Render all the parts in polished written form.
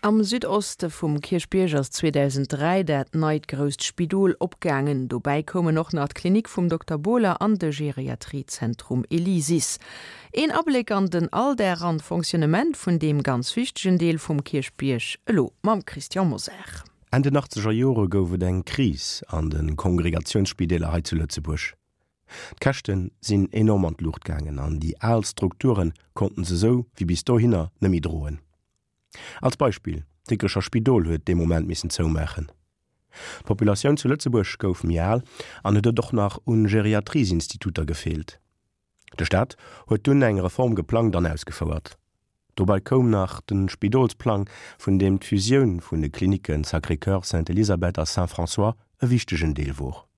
Am Südoste vum Kierchbierg ass 2003 dat neit grousst Spidol opgaangen. Dobäi koumen och nach d'Klinik vum Dokter Bohler an de Geriatriezentrum Elysis. Een Abléck an den Alldag an d'Fonctionnement vun deem ganz wichtegen Deel vum Kierchbierg, elo mam Christian Mosar. Enn den achtzeger Jore gouf et eng Kris an de Kongregatiounsspideeler hei zu Lëtzebuerg. D'Käschte sinn enorm an d'Luucht gaangen an déi al Strukture konnten se sou wéi bis dohinner net méi droen. Als Beispill, d'Dikrecher Spidol huet dee Moment missen zoumaachen. D'Populatioun zu Lëtzebuerg gouf méi al an et huet och nach un Geriatriesinstituter gefeelt. De Staat huet dunn eng Reform geplangt an ausgefouert. Dobei koum nach de Spidolsplang, vun deem d'Fusioun vun de Klinicken Sacré-Cœur, Sainte-Elisabeth a Saint-François e wichtegen Deel wor.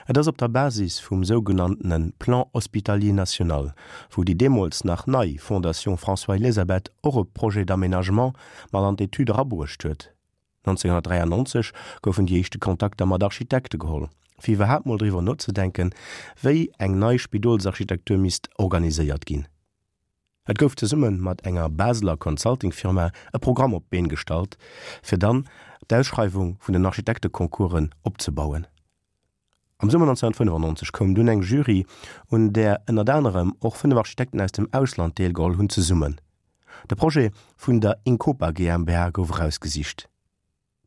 Et ass op der Basis vum sougenanntene Plan hospitalier national, wou déi deemools nach nei Fondation François-Elisabeth och e Projet d'aménagement mat an d'Etüd erabruecht huet, 1993 goufen déi éischte Kontakter mat Architekte geholl, fir iwwerhaapt mol driwwer nozedenken, wéi eng nei Spidolsarchitektur misst organiséiert ginn. Et gouf zesumme mat enger Baseler Consulting-Firma e Programm op d'Been gestallt, fir dann d'Ausschreiwung vun den Architekteconcoursen opzebauen. Am Summer 1995 koum dunn eng Jury, un där ënnert anerem och 5 Architekten aus dem Ausland deelgeholl hunn, zesummen. De Projet vun der Incopa GmbH gouf erausgesicht.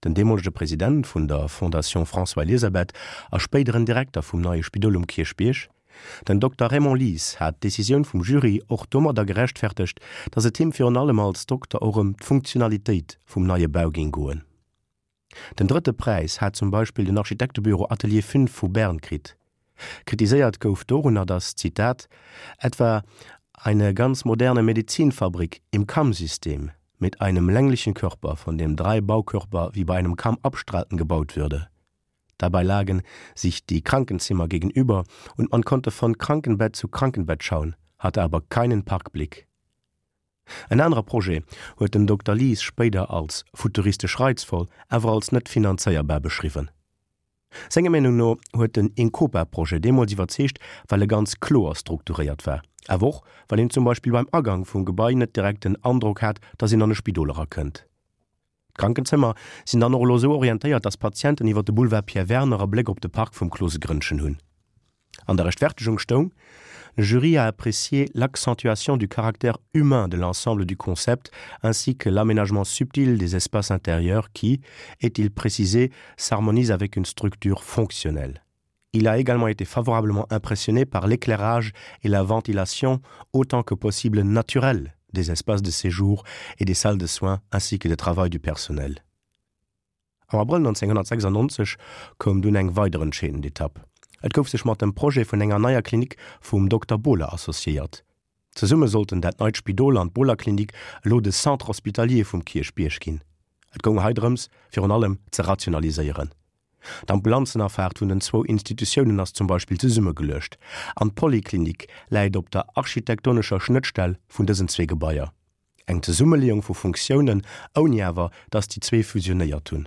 Den deemolege President vun der Fondation François-Elisabeth a spéideren Direkter vum neie Spidol um Kierchbierg, den Dokter Raymond Lies, hat d'Decisioun vum Jury och domadder gerechtfertegt, datt et him virun allem als Dokter och ëm d'Funktionalitéit vum neie Bau géing goen. Den drëtte Präis hat zum Beispill den Architektebüro Atelier 5 vu Bern kritt. Kritiséiert gouf dorunner, datt, Zitat, etwa eine ganz moderne Medizinfabrik im Kammsystem mit einem länglichen Körper, von dem drei Baukörper wie bei einem Kamm abstrahlten, gebaut würde. Dabei lagen sich die Krankenzimmer gegenüber und man konnte von Krankenbett zu Krankenbett schauen, hatte aber keinen Parkblick. En anere Projet huet den Dokter Lies spéider als futuristesch reizvoll, awer als net finanzéierbar beschriwwen. Senger Meenung no huet den Incopa-Projet deemools iwwerzeegt, well e ganz kloer strukturéiert war, awer och well een zum Beispill beim Agang vum Gebai net direkt den Androck hat, datt een an e Spidol erakënnt. D'Krankenzëmmer sinn dann och elo esou orientéiert, datt Patienten iwwer de Boulevard Pierre Werner e Bléck op de Park vum Klosegrënnchen hunn. An der Rechtfertegung stoung, Le jury a apprécié l'accentuation du caractère humain de l'ensemble du concept ainsi que l'aménagement subtil des espaces intérieurs qui, est-il précisé, s'harmonise avec une structure fonctionnelle. Il a également été favorablement impressionné par l'éclairage et la ventilation autant que possible naturelle des espaces de séjour et des salles de soins ainsi que de travail du personnel. Am Abrëll 1996 koum dunn eng weider entscheedend Etapp. Et gouf sech mat dem Projet vun enger neier Klinik vum Dokter Bohler associéiert. Zesumme sollten dat neit Spidol an d'Bohler-Klinik elo de Centre hospitalier vum Kierchbierg ginn. Et goung hei drëms, virun allem ze rationaliséieren. D'Ambulanzenafaart vun den zwou Institutiounen ass zum Beispill zesummegeluecht an d'Poliklinik läit op der architektonescher Schnëttstell vun dësen zwee Gebaier. Eng Zesummeleeung vu Funktiounen, ouni awer datt déi zwee fusionéiert hunn.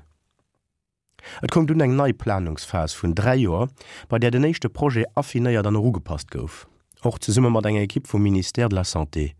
Et koum dunn eng nei Planungsphas vun 3 Joer, bei där den éischte Projet affinéiert an erugepasst gouf, och zesumme mat enger Ekipp vum Ministère de la Santé.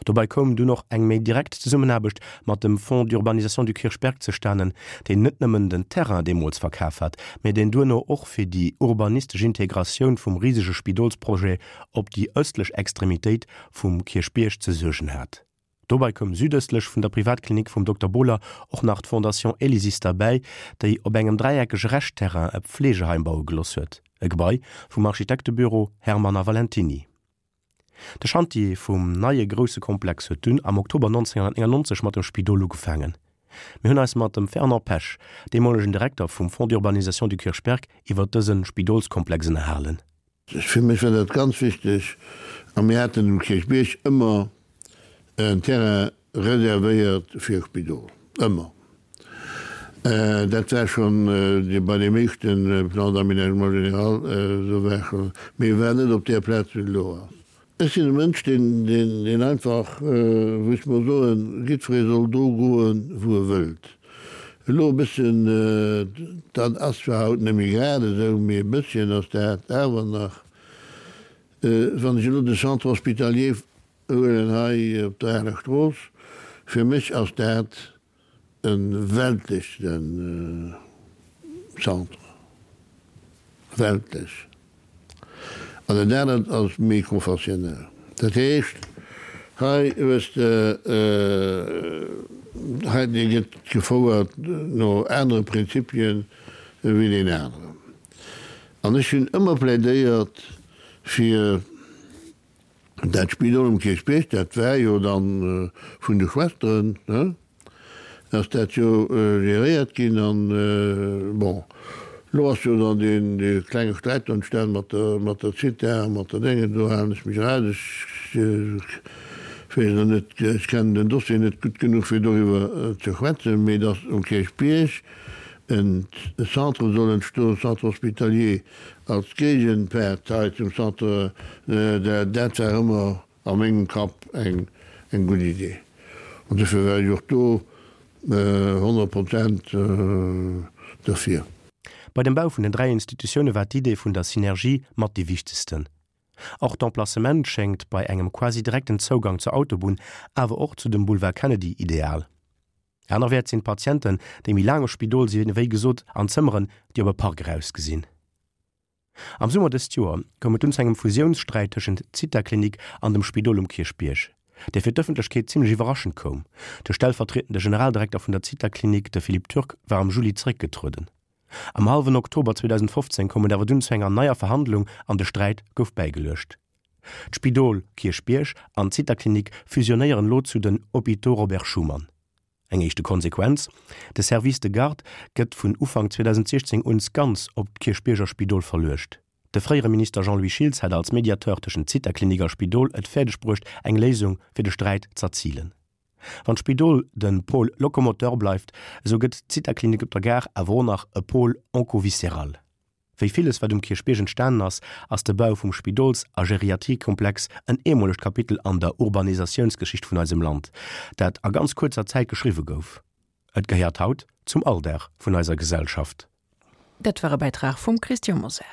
Dobäi koum dunn och eng méi direkt Zesummenaarbecht mat dem Fonds d'urbanisation du Kirchberg zestanen, deen net nëmmen den Terrain deemools verkaf hat, mä deen duerno och fir déi urbanistesch Integratioun vum risege Spidolsprojet op déi ëstlech Extremitéit vum Kierchbierg ze suergen hat. Dobei koum südëstlech vun der Privatklinik vum Dokter Bohler och nach d'Fondation Elysis derbäi, déi op engem dräieckege Reschtterrain e Pflegeheim baue geloss huet, e Gebai vum Architektebüro Hermann a Valentiny. De Chantier vum neie grousse Komplex huet dunn am Oktober 1999 mat dem Spidol ugefaangen. Mir hunn eis mat dem Fernand Pesch, deemolegen Direkter vum Fonds d'urbanisation du Kirchberg, iwwer dëse Spidolskomplex ënnerhalen. Fir mech war dat ganz wichteg a mir haten um Kierchbierg ëmmer en Terrain reservéiert fir e Spidol, ëmmer. Dat war schonn bei deem éischte Plan d'aménagement général esou war schonn, mee e war net op där Plaz wéi et elo ass. Ech sinn e Mënsch, deen, deen einfach, wou ech mol soen, jiddweree soll do goen, wou e wëllt. Elo e bësschen, dat ass zwar haut net méi grad esou, mee e bësschen ass dat awer nach, wann ech elo de Centre hospitalier huelen hei op der Aler Strooss. Fir mech ass dat e weltleche Centre, weltlech. An dat anert ass méi konfessionell. Dat heescht, hei hues de, hei dee gëtt gefouert no anere Prinzipien wéi deen aneren. An ech hunn ëmmer plädéiert fir Dat Spidol um Kierchbierg, dat war jo dann vun de Schwesteren, ne, ass dat jo geréiert ginn an, bon, elo ass jo dann deen, dee klenge Sträit do entstan mat der, mat der Zitha a mat der Déngen, do halen ech mech eraus, ech weess elo net, ech kennen den Dossier net gutt genuch fir doriwwer ze schwätzen, mee datt um Kierchbierg en Centre soll entstoen, Centre hospitalier, Als Géigenpartei zum Centre, dat war ëmmer a mengem Kapp eng gutt Idee. An dofir war ech och do 100 Prozent derfir. Bei dem Bau vun den 3 Institutioune war d'Idee vun der Synergie mat déi wichtegsten. Och d'Emplacement schéngt bei engem quasi direkten Zougang zur Autobunn, awer och zu dem Boulevard Kennedy ideal. Anerwäerts sinn d'Patienten, déi méi laang am Spidol sinn, wéi gesot an Zëmmeren, déi op e Park erausgesinn. Am Summer dëst Joer koum et dunn zu engem Fusiounssträit tëschent Zithaklinik an dem Spidol um Kierchbierg, dee fir d'Ëffentlechkeet zimmlech iwwerraschend koum. De stellvertrietende Generaldirekter vun der Zithaklinik, de Philippe Turk, war am Juli zeréckgetrueden. Am hallwen Oktober 2015 koum et awer dunn zu enger neier Verhandlung an de Sträit gouf bäigeluecht. D'Spidol Kierchbierg an d'Zithaklinik fusionéieren elo zu den Hôpitaux Robert Schuman. Eng éischte Konsequenz, De Service de garde gëtt vun Ufank 2016 uns ganz op d'Kierchbierger Spidol verluecht. De fréiere Minister Jean-Louis Schiltz hat als Mediateur tëschent Zithaklinik a Spidol et fäerdeg bruecht, eng Léisung fir de Sträit z'erzilen. Wann d'Spidol de Pôle locomoteur bleift, esou gëtt d'Zithaklinik op der Gare awer och nach e Pôle oncoviscéral. Wéi villes wat um Kierchbierg entstanen ass, ass de Bau vum Spidols a Geriatriekomplex en eemolegt Kapitel an der Urbanisatiounsgeschicht vun eisem Land, dat a ganz kuerzer Zäit geschriwwe gouf. Et gehéiert haut zum Alldag vun eiser Gesellschaft. Dat war e Bäitrag vum Christian Mosar.